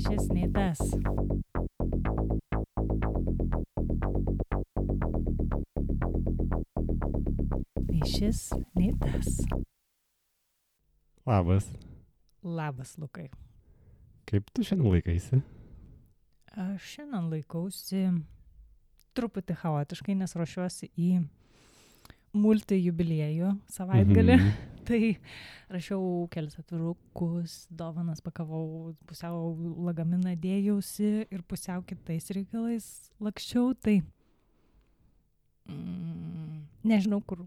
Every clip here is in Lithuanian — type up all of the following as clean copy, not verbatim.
šis nei tas. Nei šis, nei tas. Labas. Labas, Lukai. Kaip tu šiandien laikaisi? Aš šiandien laikausi truputį chaotiškai, nes ruošiuosi į multijubiliejų savaitgalį. Tai rašiau kelis atvirukus, dovanas pakavau, pusiau lagaminą dėjausi ir pusiau kitais reikalais lakščiau. Tai nežinau, kur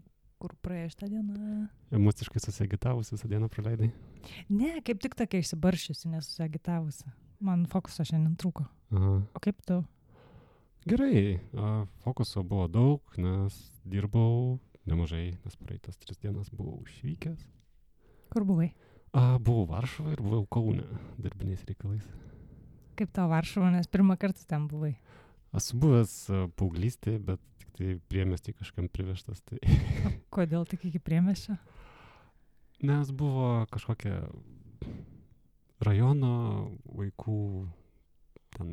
praėjo šitą dieną. Emociškai susiagitavusi visą dieną praleidai? Ne, kaip tik tokia išsibaršiusi, nesusiagitavusi. Man fokuso šiandien trūko. Aha. O kaip tu? Gerai, fokuso buvo daug, nes dirbau nemažai, nes praeitas 3 dienas buvau išvykęs. Kur buvai? Buvau Varšuvoje ir buvau Kaune darbiniais reikalais. Kaip tau Varšuva, nes pirmą kartą ten buvai? Esu buvęs paauglystėje, bet tik tai priemiestį kažkam privežtas. Tai... Kodėl tik iki priemiesčio? Nes buvo kažkokia rajono vaikų ten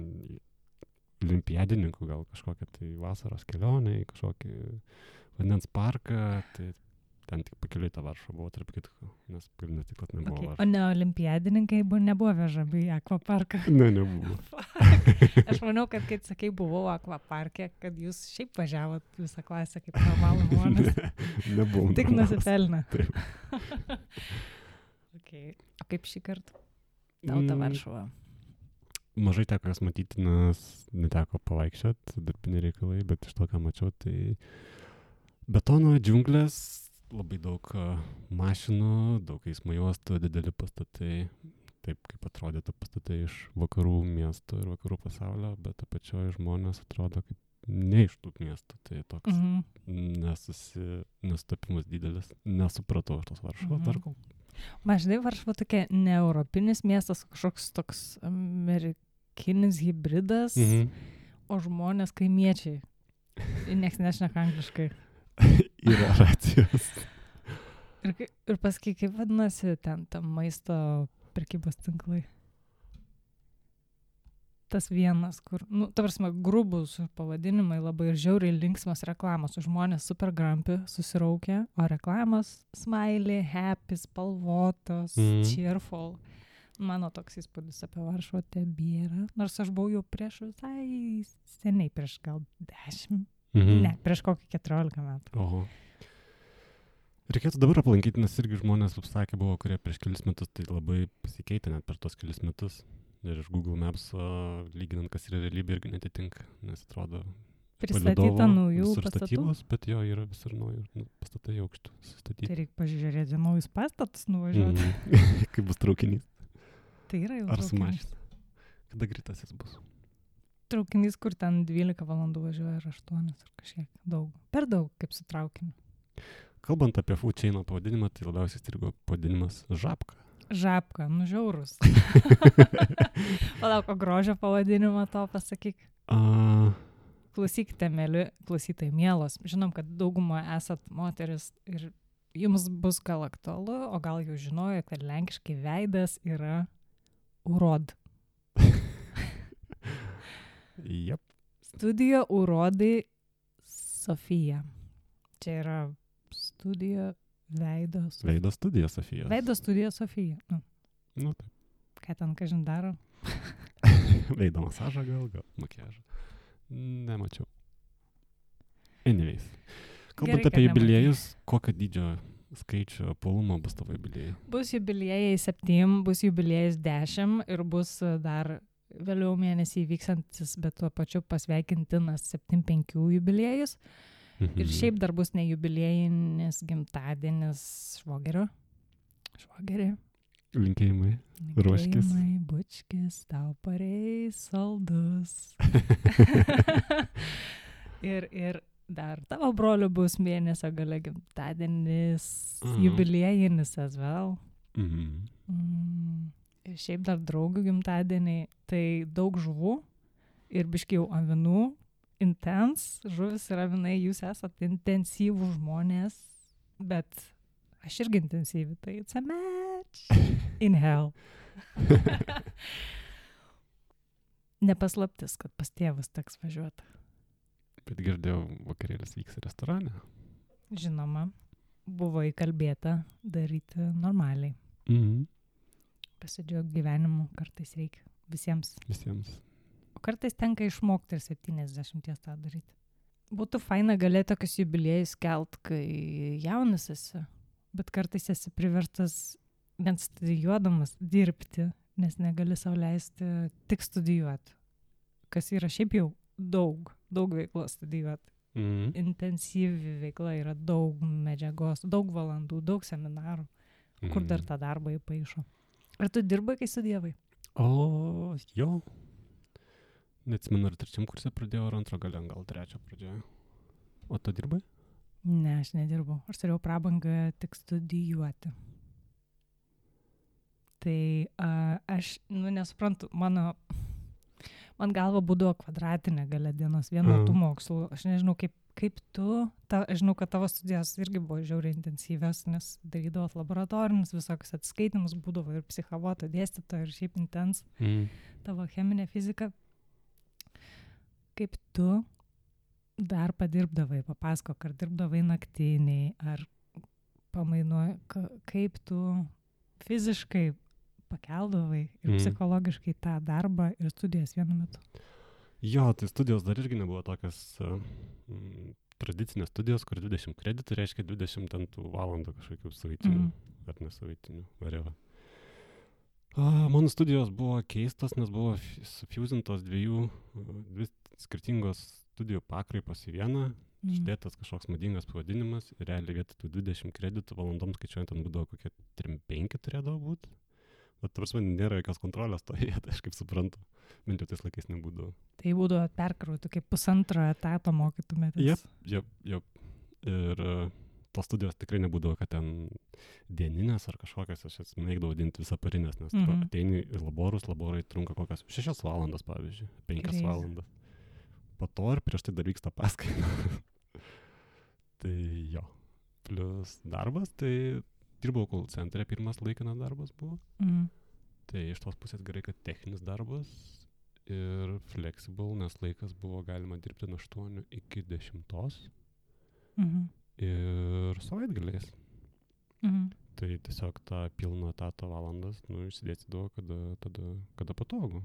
olimpiadininkų, gal kažkokia tai vasaros kelionė į kažkokį vandens parką, tai ten tik pakeliui tą Varšuvą buvo, tarp kitko, nes pagrindinis tikslas nebuvo Okay. Varšuva. O ne olimpiadininkai nebuvo vežami į akvaparką? Ne, nebuvo. Aš manau, kad kai sakai buvau akvaparke, kad jūs šiaip važiavot visą klasę kaip normalų žmonės. Nebuvom. Tik nusipelnė. Taip. Okay. O kaip šį kartą? Tau ta Varšuva. Mažai teko jas matyti, nes neteko pavaikščiot, darbiniai reikalai, bet iš to, ką mačiau, tai betono džiunglės, labai daug mašinų, daug eismo juostų, dideli pastatai, taip kaip atrodytų pastatai iš vakarų miestų ir vakarų pasaulio, bet apačioje žmonės atrodo kaip ne iš tų miestų, tai toks nesustapimas didelis, nesupratau aš tos Varšuvos dar kol. Maždai Varšuva tokia ne europinis miestas, kažkoks toks amerikinis hybridas, o žmonės kaimiečiai. Niekas nešneka angliškai. Yra racijos. Ir paskui, kaip vadinasi ten maisto prekybos tinklai? Tas vienas, kur, ta prasme, grubus pavadinimai, labai žiauriai linksmas reklamos, žmonės super grampi, susiraukia, o reklamos smiley, happy, spalvotos, cheerful. Mano toks įspūdis apie Varšuvą tebėra, nors aš buvau jau prieš visai seniai, prieš gal 10, ne, prieš kokį 14 metų. Oho. Reikėtų dabar aplankyti, nes irgi žmonės, kaip sakė, buvo, kurie prieš kelis metus, tai labai pasikeitė net per tos kelis metus. Ir iš Google Maps lyginant, kas yra realybė, irgi netitinka, nes atrodo pristatyta naujų pastatų. Statybos, bet jo yra visur naujų pastatai aukštų sustatyti. Tai reikia pažiūrėti naujus pastatus nuvažiuoti. Kaip bus traukinys. Tai yra jau Ar traukinys. su mašina. Kada greitasis bus? Traukinys, kur ten 12 valandų važiuoja ar 8 ar kažkiek daug. Per daug, kaip su traukiniu. Kalbant apie food chaino pavadinimą, tai labiausiai strigo pavadinimas Žabka. Žabka, žiaurus. Palauk, o grožio pavadinimą to pasakyk. Klausykite, mėly klausytojai, mielos. Žinom, kad daugumą esat moteris ir jums bus gal aktualu, o gal jau žinojo, kad lenkiškai veidas yra urod. Jep. Studija urodai Sofija. Čia yra studija Veido studija Sofijos. Veido studija Sofija. Nu, taip. Ką ten kažin daro? Veido masažą gal makiažą. Nemačiau. Anyways. Kalbant apie jubiliejus, kokio dydžio skaičio polumo bus tavo jubiliejai? Bus jubiliejai 7, bus jubiliejais 10 ir bus dar vėliau mėnesį vyksantis, bet tuo pačiu pasveikintinas 7-5 jubiliejus. Ir šiaip dar bus ne jubiliejinis gimtadienis švogerio. Švogerį. Linkėjimai. Ruoškis. Linkėjimai, bučkis, tau pareis saldus. ir dar tavo broliu bus mėnesio gale gimtadienis, jubiliejinis as well. Ir šiaip dar draugų gimtadieniai, tai daug žuvų ir biškai jau avinų. Žuvis ir avinai, jūs esat intensyvų žmonės, bet aš irgi intensyvi, tai it's a match in hell. nepaslaptis, kad pas tėvus teks važiuoti. Bet girdėjau, vakarėlis vyks restorane. Žinoma, buvo įkalbėta daryti normaliai. Pasidžiaugti gyvenimu kartais reikia visiems. O kartais tenka išmokti ir 70 tą daryti. Būtų faina galėti tokius jubiliejus kelt, kai jaunas esi, bet kartais esi priverstas net studijuodamas dirbti, nes negali sau leisti tik studijuoti. Kas yra šiaip jau daug veiklos studijuoti. Intensyvi veikla yra daug medžiagos, daug valandų, daug seminarų, kur dar tą darbą įpaišo. Ar tu dirbai, kai studijavai? O, jo. Neatsimenu, ar 3 kurse pradėjau, ar 2 gal 3 pradėjau. O tu dirbai? Ne, aš nedirbau. Aš turėjau prabangą tik studijuoti. Tai aš, nesuprantu, man galva būdavo kvadratinė gale dienos vieno tų mokslų. Aš nežinau, kaip tu, aš žinau, kad tavo studijos irgi buvo žiauriai intensyvios, nes darydavot laboratorinius visokius atskaitimus, būdavo ir psichavoto dėstytojo, ir šiaip intens tavo cheminė fizika. Kaip tu dar padirbdavai, papasakok, ar dirbdavai naktiniai, ar pamainuoji, kaip tu fiziškai pakeldavai ir psichologiškai tą darbą ir studijas vienu metu? Jo, tai studijos dar irgi nebuvo tokios tradicinės studijos, kur 20 kreditų reiškia 20 valandų kažkokių savaitinių ar nesavaitinių, whatever. Mano studijos buvo keistos, nes buvo sufuzintos dvi skirtingos studijų pakraipos į vieną, išdėtas kažkoks madingas pavadinimas ir realiai vietoj tų 20 kreditų valandoms skaičiuojant, ten būdavo kokie 3-5 turėdavo būti. Bet prasme, nėra jokios kontrolės to vietą, aš kaip suprantu. Bent jau tais laikais nebūdavo. Tai būdavo perkrauti, kaip 1,5 etato mokytumėtės. Jep. Ir tos studijos tikrai nebūdavo, kad ten dieninės ar kažkokias, aš mėgdavau vadinti visaparinės, nes tu ateini į laborai trunka kokias 6 valandas, pavyzdžiui, 5 valandas. Po to ir prieš tai dar vyksta paskaita. Tai jo. Plius darbas, tai dirbau call centre, pirmas laikinas darbas buvo. Tai iš tos pusės gerai, kad techninis darbas ir flexible, nes laikas buvo galima dirbti nuo 8 iki 10. Ir savaitgaliais. Tai tiesiog tą pilną etato valandas, išsidėstydavo, kada patogu.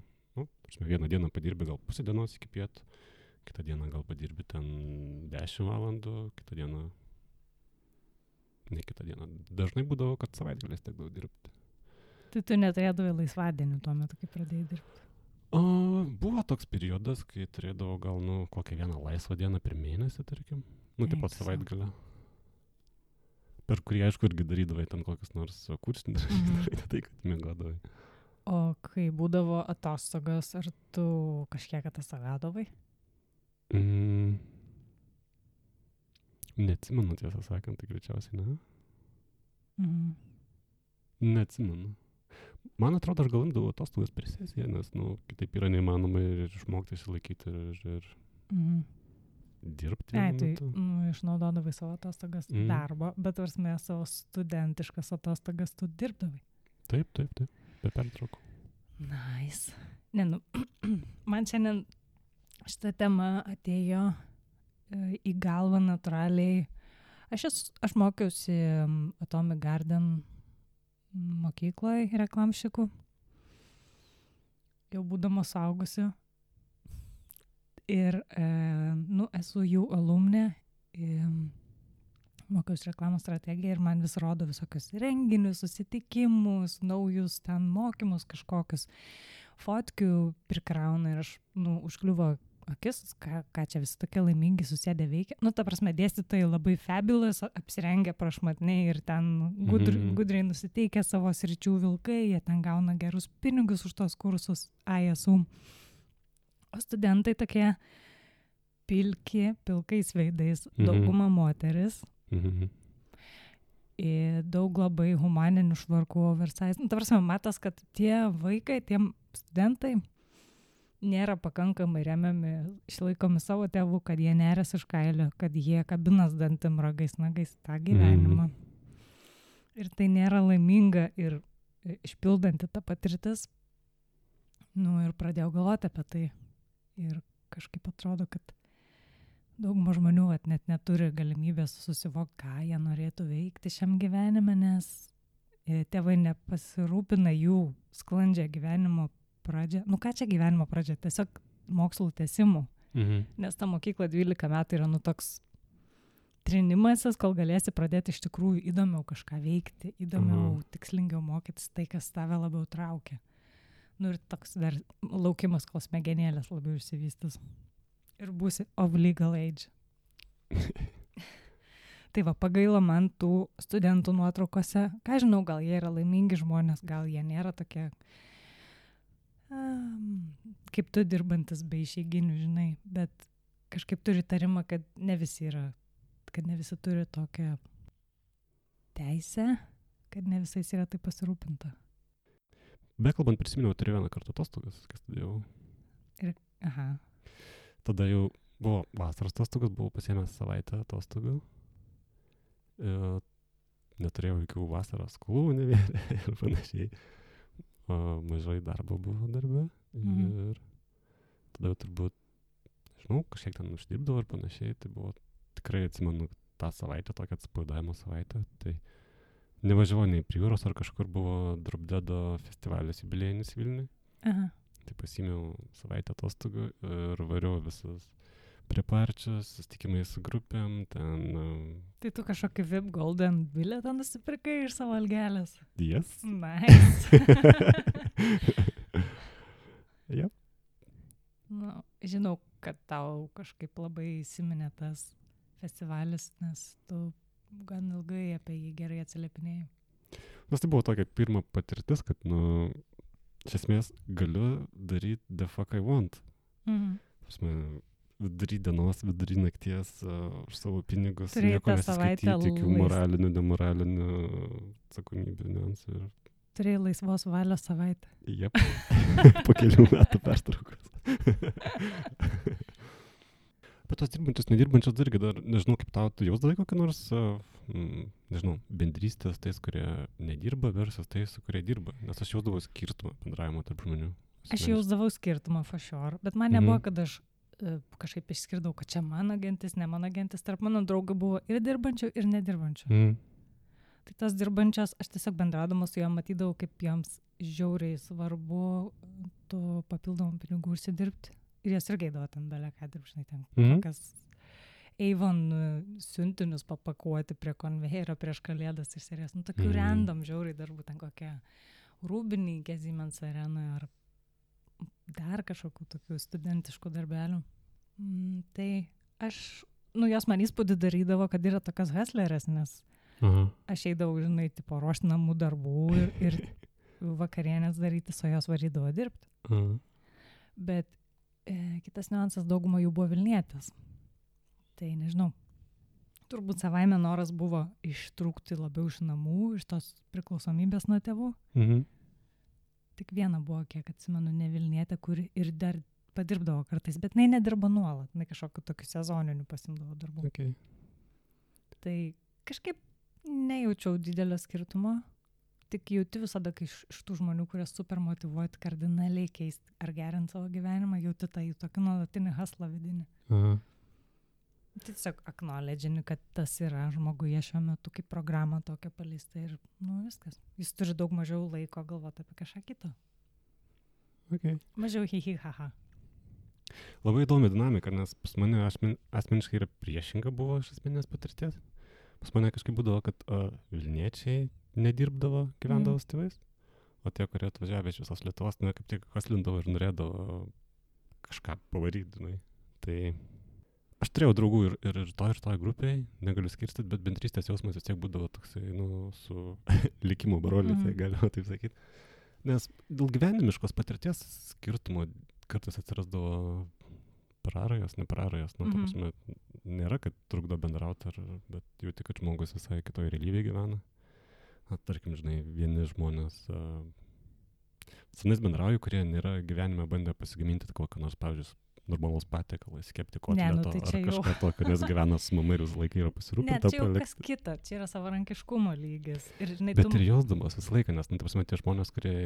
Vieną dieną padirbi gal pusę dienos iki pietų, kitą dieną gal padirbi ten 10 valandų, kitą dieną, ne kitą dieną. Dažnai būdavo, kad savaitgaliais tekdavo dirbti. Tai tu neturėdavai laisvadienių tuo metu, kai pradėjai dirbti? Buvo toks periodas, kai turėdavau gal, kokią vieną laisvą dieną per mėnesį, tarkim. Taip pat savaitgalę. Per kurį, aišku, irgi darydavai ten kokius nors kursinius, tai kad miegodavai. O kai būdavo atostogas, ar tu kažkiek atostogaudavai? Neatsimenu, tiesą sakant, tai greičiausiai ne. Neatsimenu. Man atrodo, aš gal imdavau atostogas per sesiją, nes, kitaip yra neįmanoma ir išmokti išsilaikyti ir dirbti. Tai išnaudodavai savo atostogas darbo, bet varsime savo studentiškas atostogas tu dirbdavai. Taip, be pertraukų. Nice. Man šiandien šitą temą atėjo į galvą natūraliai. Aš mokiausi Atomic Garden mokykloje reklamšikų. Jau būdama suaugusi. Ir, esu jų alumnė. Mokiausi reklamos strategiją ir man vis rodo visokius renginius, susitikimus, naujus ten mokymus kažkokius. Fotkių prikrauna ir aš, užkliuvo akis, ką čia visi tokie laimingi susėdę veikia. Ta prasme, dėstytojai labai fabulous, apsirengę prašmatniai ir ten gudriai nusiteikę savo sričių vilkai, jie ten gauna gerus pinigus už tos kursus ISU. O studentai tokie pilkais veidais, dauguma moteris. Ir daug labai humaninių švarkų oversize. Ta prasme, matas, kad tie vaikai, tie studentai nėra pakankamai remiami, išlaikomi savo tėvų, kad jie neres iš kailio, kad jie kabinas dantim ragais, nagais tą gyvenimą. Ir tai nėra laiminga ir išpildanti ta patirtis. Nu ir pradėjau galvoti apie tai. Ir kažkaip atrodo, kad dauguma žmonių net neturi galimybės susivokti, ką jie norėtų veikti šiam gyvenime, nes tėvai nepasirūpina jų sklandžią gyvenimo pradžią. Nu ką čia gyvenimo pradžia? Tiesiog mokslų tęsimų. Nes ta mokykla 12 metų yra toks trinimasis, kol galėsi pradėti iš tikrųjų įdomiau kažką veikti, įdomiau, tikslingiau mokytis tai, kas tave labiau traukia. Nu ir toks dar laukimas, kol smegenėlės labiau išsivystys. Ir būsi of legal age. Tai va, pagailo man tų studentų nuotraukose. Ką žinau, gal jie yra laimingi žmonės, gal jie nėra tokie, kaip tu dirbantis be išeiginių, žinai. Bet kažkaip turi tarimą, kad ne visi turi tokią teisę, kad ne visais yra taip pasirūpinta. Bekalbant, prisiminiau, turėjau vieną kartą atostogas, kai studijavau. Aha. Tada jau buvo vasaros atostogas, buvau pasiėmęs savaitę atostogų. Neturėjau jokių vasaros skolų nevėlė ir panašiai. Mažai darbo buvo darbe. Ir tada jau turbūt, žinau, kažkiek ten uždirbdavo ir panašiai. Tai buvo, tikrai atsimenu tą savaitę, tokią atsipalaidavimo savaitę. Tai nevažiavau nei prie jūros ar kažkur buvo Drop Deado festivalis jubiliejinis Vilniui. Aha. Tai pasiėmiau savaitę atostogų ir variau visus preparčius, susitikimai su grupėm, ten... Tai tu kažkokį VIP Golden bilietą nusipirkai iš savo algelės? Yes. Nice. Yep. Nu, žinau, kad tau kažkaip labai įsiminė tas festivalis, nes tu gan ilgai apie jį gerai atsiliepinėjai. Nes tai buvo tokia pirma patirtis, kad, iš esmės galiu daryti the fuck I want. Vidury dienos, vidury nakties, už savo pinigus, nieko nesiskaityti, jokių moralinių, demoralinių atsakomybių niuansų. Turėjai laisvos valios savaitę. Jep, po kelių metų pertraukos. Bet tos dirbančios, nedirbančios irgi dar, nežinau, kaip tau, tu jausdavai kokią nors, nežinau, bendrystės tais, kurie nedirba versus tais, kurie dirba. Nes aš jausdavau skirtumą bendravimo tarp žmonių. Aš jausdavau skirtumą for sure, bet man nebuvo, kad aš kažkaip išskirdau, kad čia mano gentis, ne mano gentis. Tarp mano draugų buvo ir dirbančių, ir nedirbančių. Tai tas dirbančias, aš tiesiog bendraudama su jom matydavau, kaip joms žiauriai svarbu tų papildomų pinigų užsidirbti. Ir jas irgi eidavo ten belė ką dirbti, ten kokias Avon siuntinius papakuoti prie konvejerio prieš kalėdas iš serijos. Nu, tokių random žiauriai darbų, ten kokie rūbininkė Siemens arenoje ar dar kažkokių tokių studentiškų darbelių. Tai aš, jos man įspūdį darydavo, kad yra tokios hustlerės, nes aš eidavau, žinai, tipo ruošti namų darbų ir vakarienės daryti, su jos varydavo dirbti. Bet kitas niuansas, dauguma jų buvo Vilnietės. Tai nežinau, turbūt savaime noras buvo ištrūkti labiau iš namų, iš tos priklausomybės nuo tėvų. Tik viena buvo, kiek atsimenu, ne Vilnietė, kuri ir dar padirbdavo kartais, bet jinai nedirbo nuolat, jinai kažkokiu tokiu sezoniniu pasimdavo darbų. Okay. Tai kažkaip nejaučiau didelio skirtumo, tik jauti visada, kai iš tų žmonių, kurie super motyvuoti kardinaliai keisti ar gerinti savo gyvenimą, jauti tą jų tokį nuolatinį haslą vidinį. Tiesiog acknowledge'ini, kad tas yra žmoguje šiuo metu kaip programa tokia paleista ir viskas. Jis turi daug mažiau laiko galvoti apie kažką kitą. Okay. Mažiau hi-hi-ha-ha. Labai įdomi dinamika, nes pas mane asmeniškai yra priešinga buvo iš asmeninės patirties. Pas mane kažkaip būdavo, kad Vilniečiai nedirbdavo, gyvendavo su tėvais, o tie, kurie atvažiavę iš visos Lietuvos, kaip tik haslindavo ir norėdavo kažką pavaryti. Tai aš turėjau draugų ir toj grupėj, negaliu skirstyti, bet bendrystės jausmas vis tiek būdavo toksai, su likimo broliu, tai galima taip sakyti. Nes dėl gyvenimiškos patirties skirtumo kartais atsirasdavo prarajos, neprarajos. Ta prasme, nėra, kad trukdo bendrauti, bet jauti, kad žmogus visai kitoj realybėje gyvena. Tarkim, žinai, vieni žmonės senais bendrauju, kurie nėra gyvenime bandę pasigaminti kokią nors, pavyzdžiui, normalus patiekalas, kepti Ne, nu kotleto tai ar čia jau. kažką tokio, nes gyvena su mama ir visą laiką yra Ne, pasirūpinta čia jau kas palikti. kita, čia yra savarankiškumo lygis. Ir, žinai, Bet ir jausdamas visą laiką, nes, nu, ta prasme, tie žmonės, kurie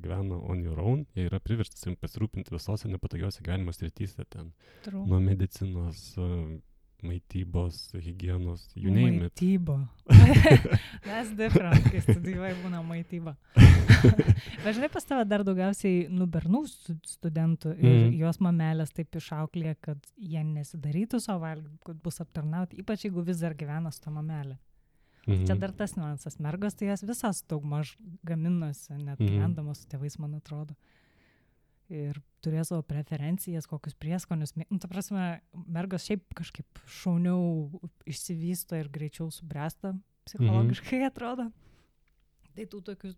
gyvena on your own, jie yra priversti savim pasirūpinti visose nepatogiose gyvenimo srityse ten. True. Nuo medicinos, maitybos, higienos, you name it. Maityba. That's different, kai studijuoji būna maityba. Bet žinai, pas tave dar daugiausiai bernų studentų ir jos mamelės taip išauklė, kad jie nesidarytų savo valgyti, kad bus aptarnauti, ypač jeigu vis dar gyvena su ta mamelė. Čia dar tas niuansas. Mergos tai jas visas daugmaž gaminosi, net gyvendamos su tėvais, man atrodo. Ir turėjo savo preferencijas, kokius prieskonius. Nu, ta prasme, mergos šiaip kažkaip šauniau išsivysto ir greičiau subręsta psichologiškai, atrodo. Tai tų tokių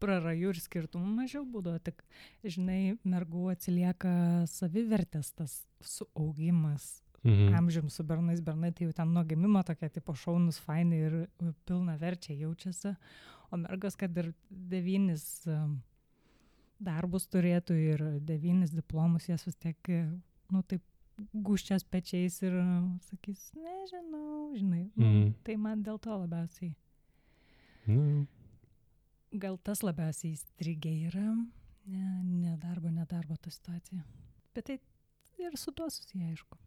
prarajų ir skirtumų mažiau būdavo. Tik, žinai, mergų atsilieka savivertės tas suaugimas. Amžium su bernais, bernai tai jau ten nuo gimimo tokie tipo šaunus, faini ir pilna verčiai jaučiasi. O mergos, kad ir 9 darbus turėtų ir 9 diplomus, jas vis tiek, nu taip, guščias pečiais ir sakys, nežinau, žinai. Tai man dėl to labiausiai. Gal tas labiausiai įstrigė yra, ne darbo ta situacija. Bet tai ir su tuo susiję, aišku.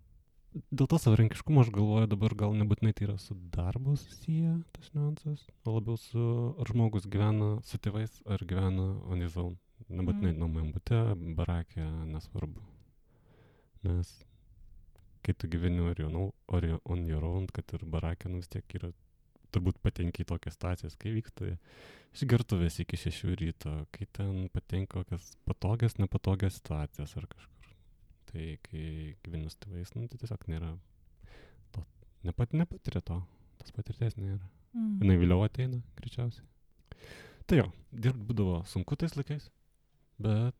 Dėl to savarankiškumo aš galvoju dabar gal nebūtinai tai yra su darbu susiję tas niuansas, o labiau su ar žmogus gyvena su tėvais ar gyvena on his own. Nebūtinai nuomojam bute, barake, nesvarbu. Nes kai tu gyveni on your own, kad ir barake, nu vis tiek yra, turbūt patenki į tokias situacijas, kai vyksta išgertuvės iki 6 ryto, kai ten patenka kokias patogias, nepatogias situacijas ar kažkur. Tai kai gyveni su tėvais, nu tai tiesiog nėra to, nepatiria to, tos patirties nėra. Jinai vėliau ateina, greičiausiai. Tai jo, dirbti būdavo sunku tais laikais, bet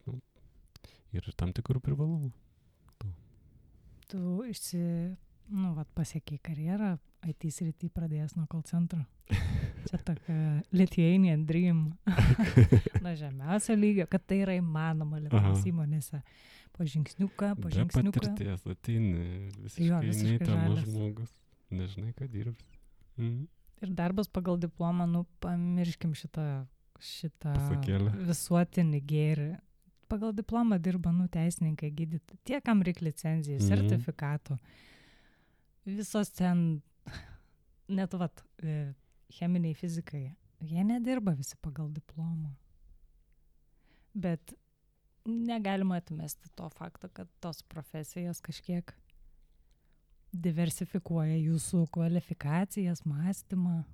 ir tam tikrų privalumų. Tu pasiekiai karjerą, IT srity pradėjęs nuo call centro. Čia tokia Lithuanian dream. Nuo žemiausio lygio, kad tai yra įmanoma Lietuvos įmonėse. Po žingsniuką. Be patirties ateini visiškai neįtamas žmogus. Nežinai, ką dirbs. Ir darbas pagal diplomą, pamirškim šitą pasakėlę. Visuotinį gėrį. Pagal diplomą dirba, teisininkai, gydytojai. Tie, kam reikia licenzijų, sertifikatų. Visos ten, net cheminiai fizikai, jie nedirba visi pagal diplomą. Bet negalima atmesti to fakto, kad tos profesijos kažkiek diversifikuoja jūsų kvalifikacijas, mąstymą.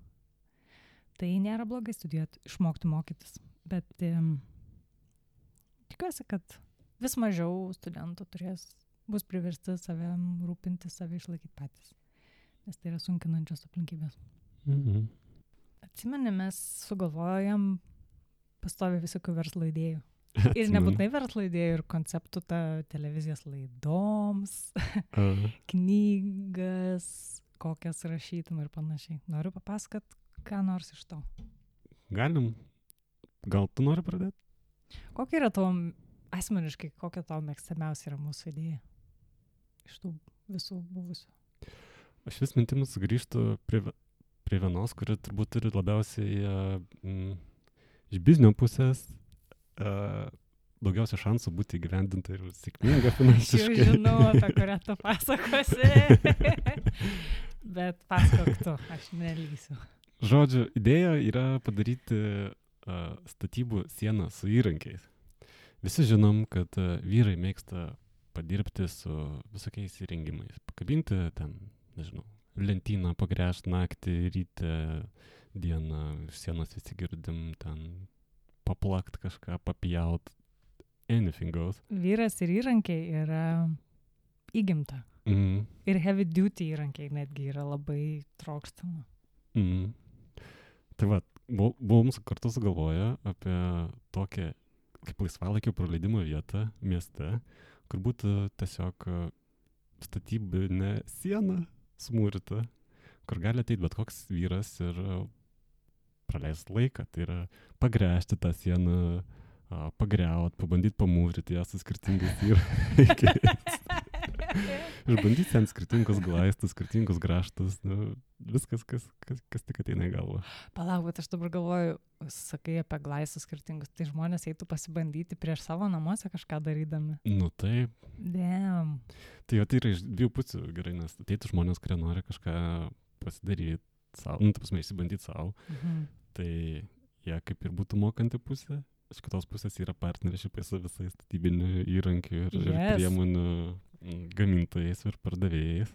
Tai nėra blogai studijuoti, išmokti mokytis. Bet tikiuosi, kad vis mažiau studentų bus priversti savim rūpinti, save išlaikyti patys. Nes tai yra sunkinančios aplinkybės. Atsimeni, mes sugalvojam pastovi visokių verslo idėjų. Ir nebūtinai verslo idėjų, ir konceptų televizijos laidoms, knygas, kokias rašytum ir panašiai. Noriu papasakot, ką nors iš to. Galim. Gal tu nori pradėti? Kokia yra tavo, asmeniškai, kokia tavo mėgstamiausia yra mūsų idėja? Iš tų visų buvusių. Aš vis mintimis grįžtu prie vienos, kuri turbūt turi labiausiai iš biznio pusės daugiausia šansų būti įgyvendinta ir sėkminga finansiškai. Aš jau žinau, apie kurią tu pasakosi. Bet pasakok tu, aš nelysiu. Žodžiu, idėja yra padaryti statybų sieną su įrankiais. Visi žinom, kad vyrai mėgsta padirbti su visokiais įrengimais. Pakabinti ten, nežinau, lentyną, pagręžti naktį, ryte, dieną, sienos visi girdim, ten paplakt kažką, papjaut, anything goes. Vyras ir įrankiai yra įgimta. Ir heavy duty įrankiai netgi yra labai trokštama. Tai buvom kartu sugalvoję apie tokią kaip laisvalaikio praleidimo vietą mieste, kur būtų tiesiog statybinė siena smūrita, kur gali ateiti bet koks vyras ir praleist laiką. Tai yra pagręžti tą sieną, pagriaut, pabandyti pamūryti ją su skirtingais įrankiais. Išbandyti ant skirtingus glaistus, skirtingus graštus, nu, viskas, kas tik ateina į galvą. Palauk, bet aš dabar galvoju, sakai apie glaistus skirtingus, tai žmonės eitų pasibandyti prieš savo namuose kažką darydami. Nu taip. Damn. Tai jau tai yra iš dviejų pusių gerai, nes ateitų žmonės, kurie nori kažką pasidaryti savo, nu, ta prasme, išsibandyti savo, tai jie kaip ir būtų mokanti pusė. Iš kitos pusės yra partneršipai su visais statybinių įrankių ir priemonių gamintojais ir pardavėjais.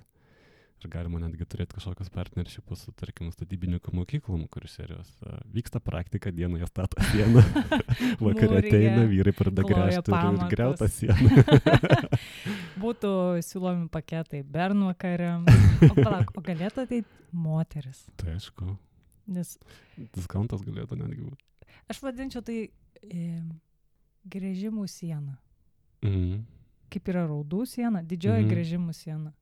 Ir galima netgi turėti kažkokius partneršipus su, tarkim, statybinių mokyklom, kur serijos vyksta praktika, dieną jie stato sieną, vakarė ateina, vyrai pradeda gręžti ir griauta sieną. Būtų siūlomi paketai bernvakariam. O palauk, o galėtų ateiti moteris? Tai aišku. Nes diskontas galėtų netgi būti. Aš vadinčiau tai gręžimų siena. Kaip yra raudų siena, didžioji gręžimų siena.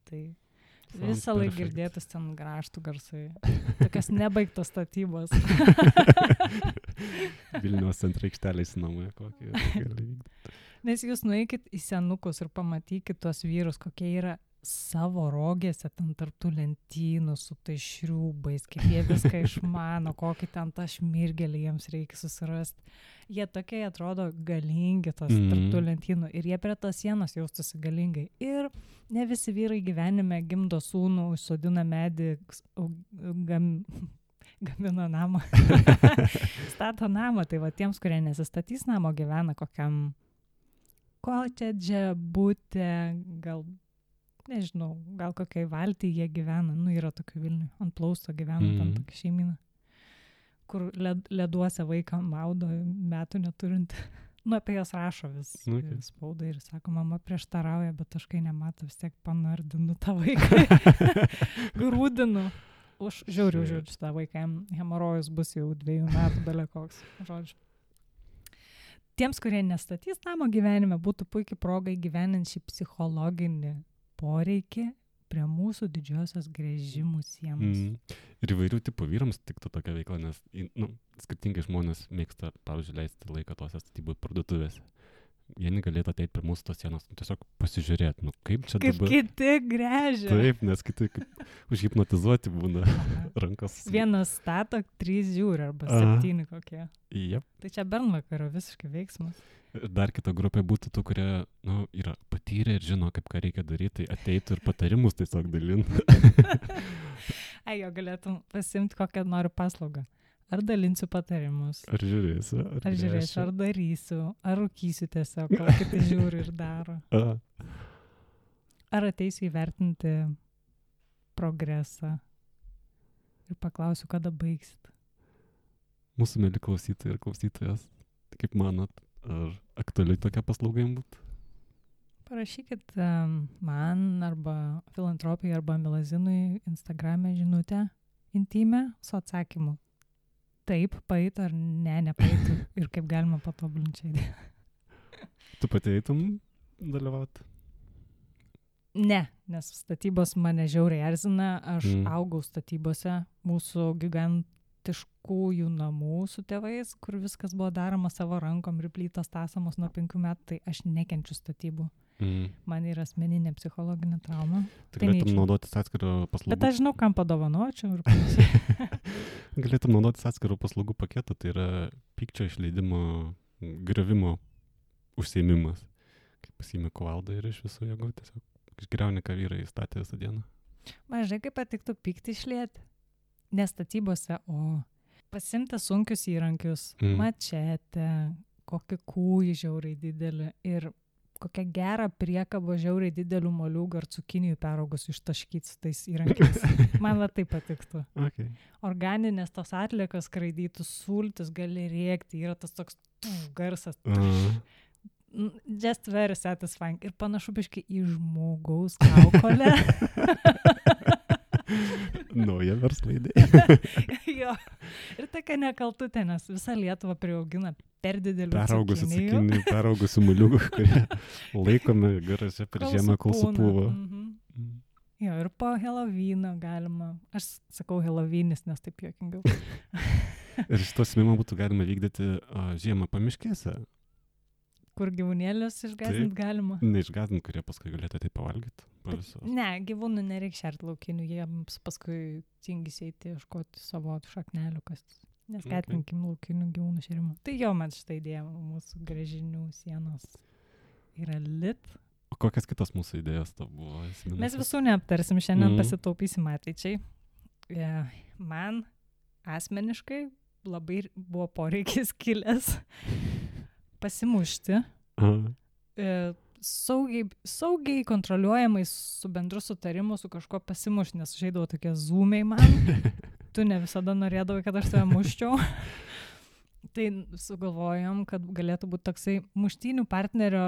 Tai visą laiką girdėtus ten grąžtų garsai. Tokios nebaigtos statybos. Vilniaus centre aikštelės namai kokie gali vykti. Nes jūs nueikit į senukus ir pamatykit tuos vyrus, kokie yra savo rogėse ten tarptų lentynų su tai šriūbais, kaip jie viską išmano, kokį ten tą šmirgelį jiems reikia susirasti. Jie tokie atrodo galingi tos tarptų lentynų ir jie prie tos sienos jaustųsi galingai. Ir ne visi vyrai gyvenime gimdo sūnų, užsodina medį, gamina namą, stato namą. Tai va tiems, kurie nesistatys namo, gyvena kokiam kotedže, bute, gal nežinau, gal kokiai valtį jie gyvena, nu yra tokių Vilnių, ant plausto gyvena ten tokia šeimina, kur leduose vaiką maudo metų neturint. Nu, apie jas rašo vis spaudai ir sako, mama prieštarauja, bet aš kai nemato, vis tiek panardinu tą vaiką. Grūdinu. Žiūriu šitą vaiką, hemorojus bus jau 2 metų belekoks. Žodžiu. Tiems, kurie nestatys namo gyvenime, būtų puikiai proga įgyvenint šį psichologinį poreikį prie mūsų didžiosios gręžimų sienos. Ir įvairių tipų vyrams tiktų tokia veikla, nes skirtingai žmonės mėgsta, pavyzdžiui, leisti laiką tose statybų parduotuvėse. Vieni galėtų ateiti prie mūsų tos sienos, tiesiog pasižiūrėti, kaip čia kaip dabar. Kaip kiti gręžia. Taip, nes kiti užhipnotizuoti būna rankos. Vienas stato, 3 žiūri arba 7 kokie. Yep. Tai čia bernvakario visiškai veiksmas. Dar kita grupė būtų tų, kurie yra patyrę ir žino, kaip ką reikia daryti, tai ateitų ir patarimus tiesiog dalinti. Jo galėtum pasimti kokią noriu paslaugą. Ar dalinsiu patarimus. Ar žiūrėsiu. Ar darysiu. Ar rūkysiu tiesiog, ką kiti žiūri ir daro. Ar ateisiu įvertinti progresą ir paklausiu, kada baigsit. Mūsų mėly klausytojai ir klausytojas, kaip manot, ar aktualiai tokia paslauga jums būtų? Parašykit man arba Filantropijai arba Milazinui Instagrame žinutę intymę su atsakymu. Taip, paeitų ar ne, nepaeitų ir kaip galima patobulinti. Tu pati eitum dalyvauti? Ne, nes statybos mane žiauriai erzina. Aš augau statybose mūsų gigantiškųjų namų su tėvais, kur viskas buvo daroma savo rankom ir plytos tasamos nuo 5 metų, tai aš nekenčiu statybų. Man yra asmeninė psichologinė trauma. Tai galėtum naudotis atskirų paslaugų. Bet aš žinau, kam padovanočiau ir panašiai. Galėtum naudotis atskirų paslaugų paketą, tai yra pykčio išleidimo, griovimo užsiėmimas. Kaip pasiimi kuvaldą ir iš visų jėgų tiesiog išgriauni, ką vyrai statė visą dieną. Mažai kaip patiktų pyktį išlieti. Ne statybose, o pasimti sunkius įrankius, mačetę, kokį kūjį žiauriai didelį ir kokią gerą priekabą žiauriai didelių moliūgų ar cukinijų peraugus ištaškyti su tais įrankiais. Man va tai patiktų. Okay. Organinės tos atliekos skraidytų, sultis gali rėkti, yra tas toks garsas. Just very satisfying. Ir panašu biškai į žmogaus kaukolę. Nauja verslo idėja. Jo. Ir tokia nekaltutė, nes visą Lietuvą priaugina per didelių peraugusių moliūgų, kurie laikomi garaže per žiemą, kol supūva. Jo, ir po Helovyno galima. Aš sakau Helovynis, nes taip juokingiau. Ir šito smimą būtų galima vykdyti žiemą pamiškėse. Kur gyvūnėlius išgąsdint galima. Neišgąsdint, kurie paskui galėtų tai pavalgyti. Ne, gyvūnų nereikia šerti laukinių, jiems paskui tingis eiti ieškoti savo šaknelių, kas neskatinkim laukinių gyvūnų šerimo. Tai jo, man šitą idėją mūsų gręžinių sienos yra lit. O kokias kitos mūsų idėjos to buvo? Mes visų neaptarsim, šiandien pasitaupysim ateičiai. Man asmeniškai labai buvo poreikis kilęs pasimušti. Saugiai kontroliuojamai su bendru sutarimu su kažkuo pasimušti, nes žaidavo tokie zoomiai man. Tu ne visada norėdavai, kad aš tave muščiau. Tai sugalvojom, kad galėtų būti toksai muštynių partnerio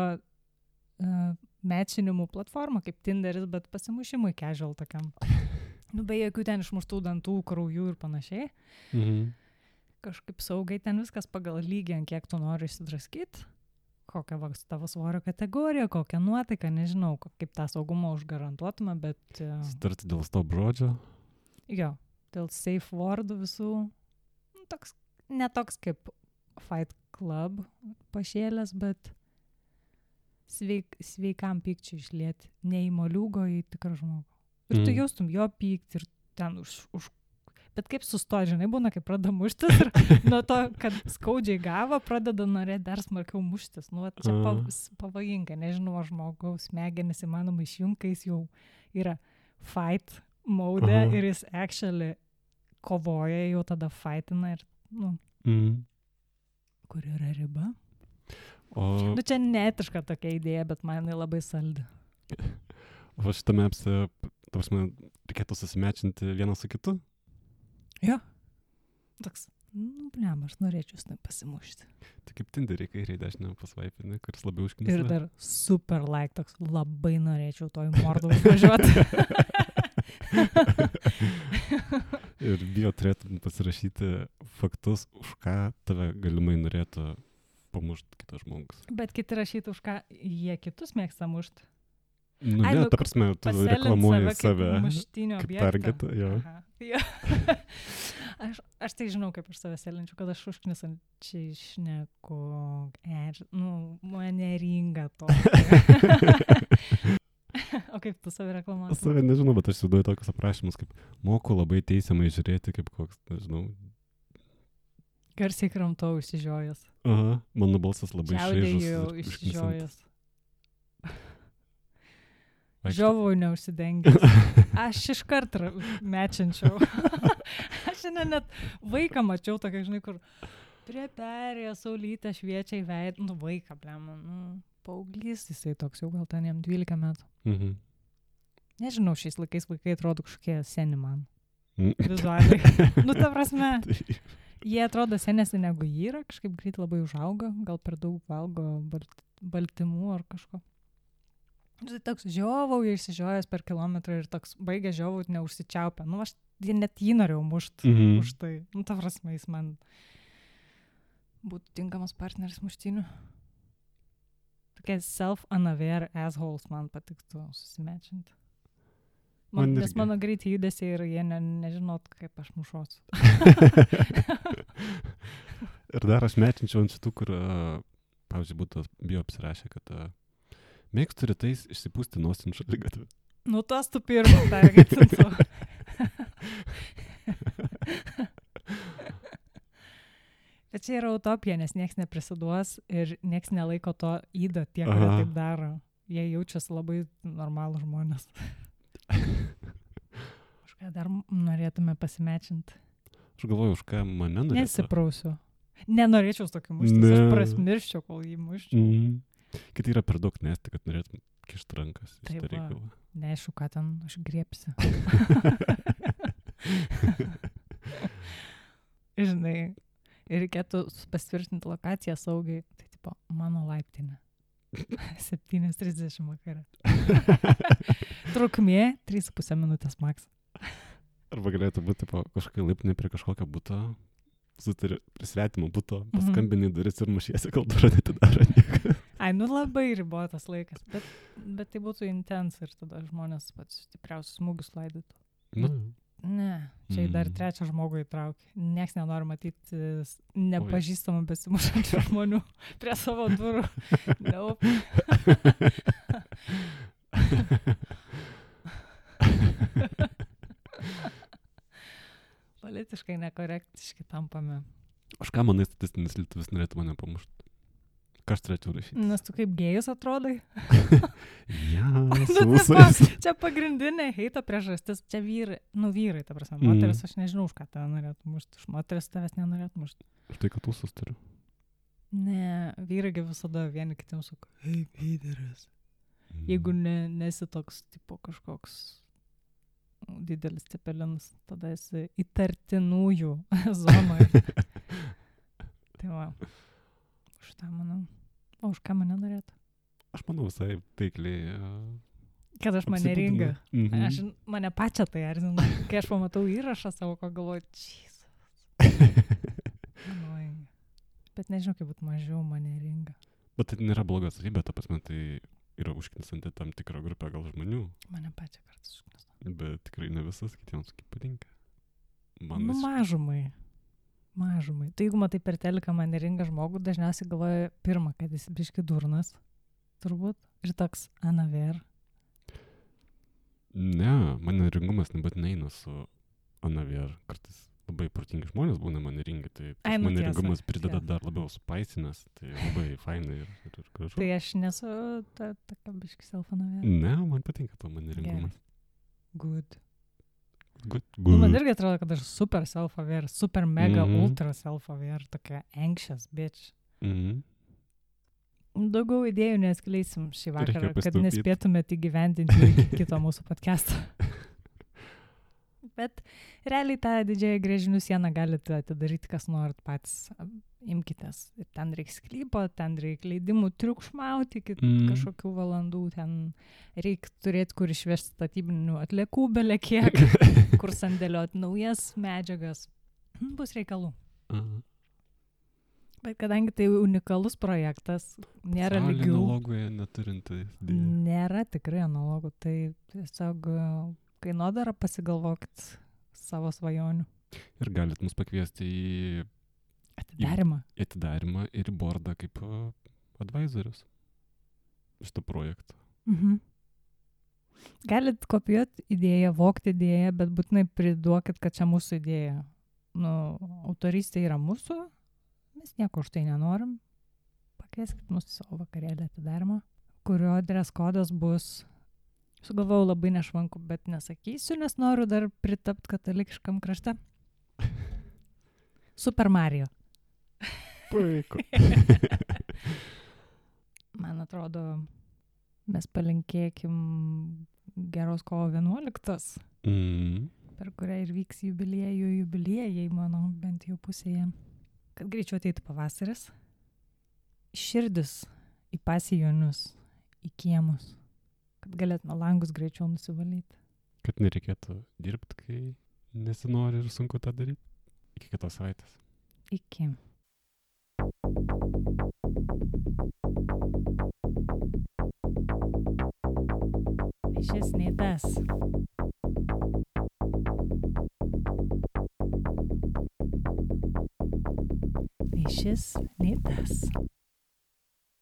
mečinimų platforma, kaip Tinderis, bet pasimušimui casual tokiam. Be jokių ten išmuštų dantų, kraujų ir panašiai. Kažkaip saugiai ten viskas pagal lygį, ant kiek tu nori išsidraskyti, kokią tavo svorio kategoriją, kokią nuotaiką, nežinau, kaip tą saugumą užgarantuotume, bet... Starti dėl stop žodžio? Jo, dėl safe wordų visų. Ne toks kaip Fight Club pašėlės, bet sveikam pykčiui išlieti. Ne į moliūgo, į tikrą žmogų. Ir tu jaustum jo pyktį ir ten už bet kaip sustoji, žinai, būna, kaip pradeda muštis ir nuo to, kad skaudžiai gavo, pradeda norėti dar smarkiau muštis. Nu, čia pavojinga, nežinau, žmogaus smegenis įmanoma išjungti, kai jis jau yra fight mode ir jis actually kovoja, jau tada fightina ir, kur yra riba. Nu, čia neetiška tokia idėja, bet man jinai labai saldi. O šitame reikėtų susimečinti vieną su kitu? Jo. Toks, aš norėčiau su tai pasimušti. Tai kaip Tinderį kairiai dešinę pasvaipinį, kuris labiau užknisa. Ir dar super like, toks labai norėčiau to į mordą užvažiuoti. Ir bio turėtum pasirašyti faktus, už ką tave galimai norėtų pamušti kitas žmogus. Bet kiti rašyti, už ką jie kitus mėgsta mušti. Nu, ne, ta prasme, tu reklamuoji save kaip targetą, jo. Aš tai žinau, kaip aš save selinčiu, kad aš užknisančiai šneku, mane ringa to. O kaip tu save reklamuoji? Save nežinau, bet aš įsivaizduoju tokius aprašymus, kaip moku labai teisiamai žiūrėti, kaip koks, nežinau. Garsiai kramtau išsižiojęs. Aha, mano balsas labai šaižus. Čiaudėjau išsižiojęs. Žiovau neužsidengęs. Aš iškart mečinčiau. Aš net vaiką mačiau tokia, žinai, kur prie perėjo saulytę šviečia į veidą. Vaiką, paauglys, jisai toks jau gal ten jam 12 metų. Nežinau, šiais laikais vaikai atrodo kažkokie seni man. Vizualiai. Ta prasme, jie atrodo senesni negu jį yra, kažkaip greit labai užauga, gal per daug valgo baltymų ar kažko. Tai toks žiovau, jie išsižiojęs per kilometrą ir toks baigė žiovau, neužsičiaupę. Aš net jį norėjau mušti už tai. Ta prasme, jis man būtų tinkamas partneris muštynių. Tokie self-unaware assholes man patiktų susimečinti. Nes mano greitai judesiai ir jie nežinot, kaip aš mušosiu. Ir dar aš mečinčiau ant šitų, kur, pavyzdžiui, būtų bio apsirašę, kad mėgstu rytais išsipūsti nosį šaligatviu. Tas tu pirmą targetintų. Bet čia yra utopija, nes nieks neprisiduos ir nieks nelaiko to įdą tie, kurie taip daro. Jie jaučiasi labai normalų žmonės. Už ką dar norėtume pasimečinti? Aš galvoju, už ką mane norėtų. Nesiprausiu. Nenorėčiau su tokiu muštis, aš prasmirščiau, kol jį muščiau. Kiti yra per daug nesti, kad norėtum kišti rankas į šitą reikalą. Neaišku, ką ten aš griepsiu. Žinai, ir reikėtų pasitvirtinti lokaciją saugiai. Tai tipo, mano laiptinė. 7:30 vakare. Trukmė 3,5 minutės maks. Arba galėtų būti kažkokia laiptinė prie kažkokio buto. Sutari prie svetimo buto, paskambini duris ir mušiesi, kol durą netidaro niekas. Labai ribotas laikas, bet tai būtų intens ir tada žmonės pats stipriausius smūgius laidytų. Ne, čia dar trečią žmogų įtraukė. Niekas nenori matyti nepažįstamų besimušančių žmonių prie savo durų. Nope. Politiškai nekorektiški tampame. Aš ką manai, statistinis lietuvis norėtų mane pamušti? Ką aš turėčiau rašyti? Nes tu kaip gėjus atrodai. Ja, su visais. Čia pagrindinė heito priežastis. Čia vyrai, vyrai, ta prasme. Moteris, aš nežinau, už ką tave norėtų mušti. Už moteris tavęs nenorėtų mušti. Už tai, kad ūsus turiu. Ne, vyragi visada vieni kitiems sako, hei, vyderis. Jeigu nesi toks, tipo, kažkoks didelis cepelinas, tada esi įtartinųjų zonoje. Tai va, už tą manau. O už ką mane norėtų? Aš manau visai taikliai. Kad aš maneringa. Aš mane pačią tai erzina. Kai aš pamatau įrašą savo, ko galvoju, Jesus. Bet nežinau, kaip būtų mažiau maneringa. Bet tai nėra bloga savybė, ta prasme, tai yra užknisanti tam tikrą grupę gal žmonių. Mane pačią kartais užknisanti. Bet tikrai ne visas, kitiems kaip patinka. Mažumai. Tai jeigu matai per teliką maneringa žmogų, dažniausiai galvoja pirmą, kad jis biški durnas, turbūt, ir toks anaver. Ne, maneringumas nebūtinai eina su anaver. Kartais labai protingi žmonės būna maneringi, tai maneringumas prideda dar labiau supaisinęs, tai labai fainai ir gražu. Tai aš nesu tokia biški self-anaver. Ne, man patinka to maneringumas. Good. Good. Man irgi atrodo, kad aš super self-aware, super mega ultra self-aware, tokia anxious bitch. Daugiau idėjų neskleisim šį vakarą, kad nespėtumėte įgyvendinti iki kito mūsų podcast'o. Bet realiai tą didžiąją grėžinių sieną galite atidaryti, kas norit patys. Imkitės. Ir ten reikia sklypo, ten reikia leidimų triukšmauti iki kažkokių valandų. Ten reikia turėti, kur išvežti statybinių atliekų belekiek, kur sandėlioti naujas medžiagas. Bus reikalų. Bet kadangi tai unikalus projektas, nėra lygių. Analogoje neturinti. Nėra tikrai analogų. Tai tiesiog kainodara pasigalvokit savo svajonių. Ir galit mus pakviesti į atidarimą ir į bordą kaip advisorius šitą projektą. Galit kopijuoti idėją, vogti idėją, bet būtinai priduokit, kad čia mūsų idėja. Autorystė yra mūsų, mes nieko už tai nenorim. Pakvieskit mūsų savo vakarėlį atidarimą, kurio dress kodas bus, sugalvojau labai nešvanku, bet nesakysiu, nes noriu dar pritapti katalikiškam krašte. Super Mario. Puiku. Man atrodo, mes palinkėkim geros kovo 11, per kurią ir vyks jubiliejai, mano bent jau pusėje. Kad greičiau ateitų pavasaris, širdis į pasijonius, į kiemus, kad galėtume langus greičiau nusivalyti. Kad nereikėtų dirbti, kai nesinori ir sunku tą daryti. Iki kitos savaitės. Iki. Šis nei tas. Nei šis, nei tas.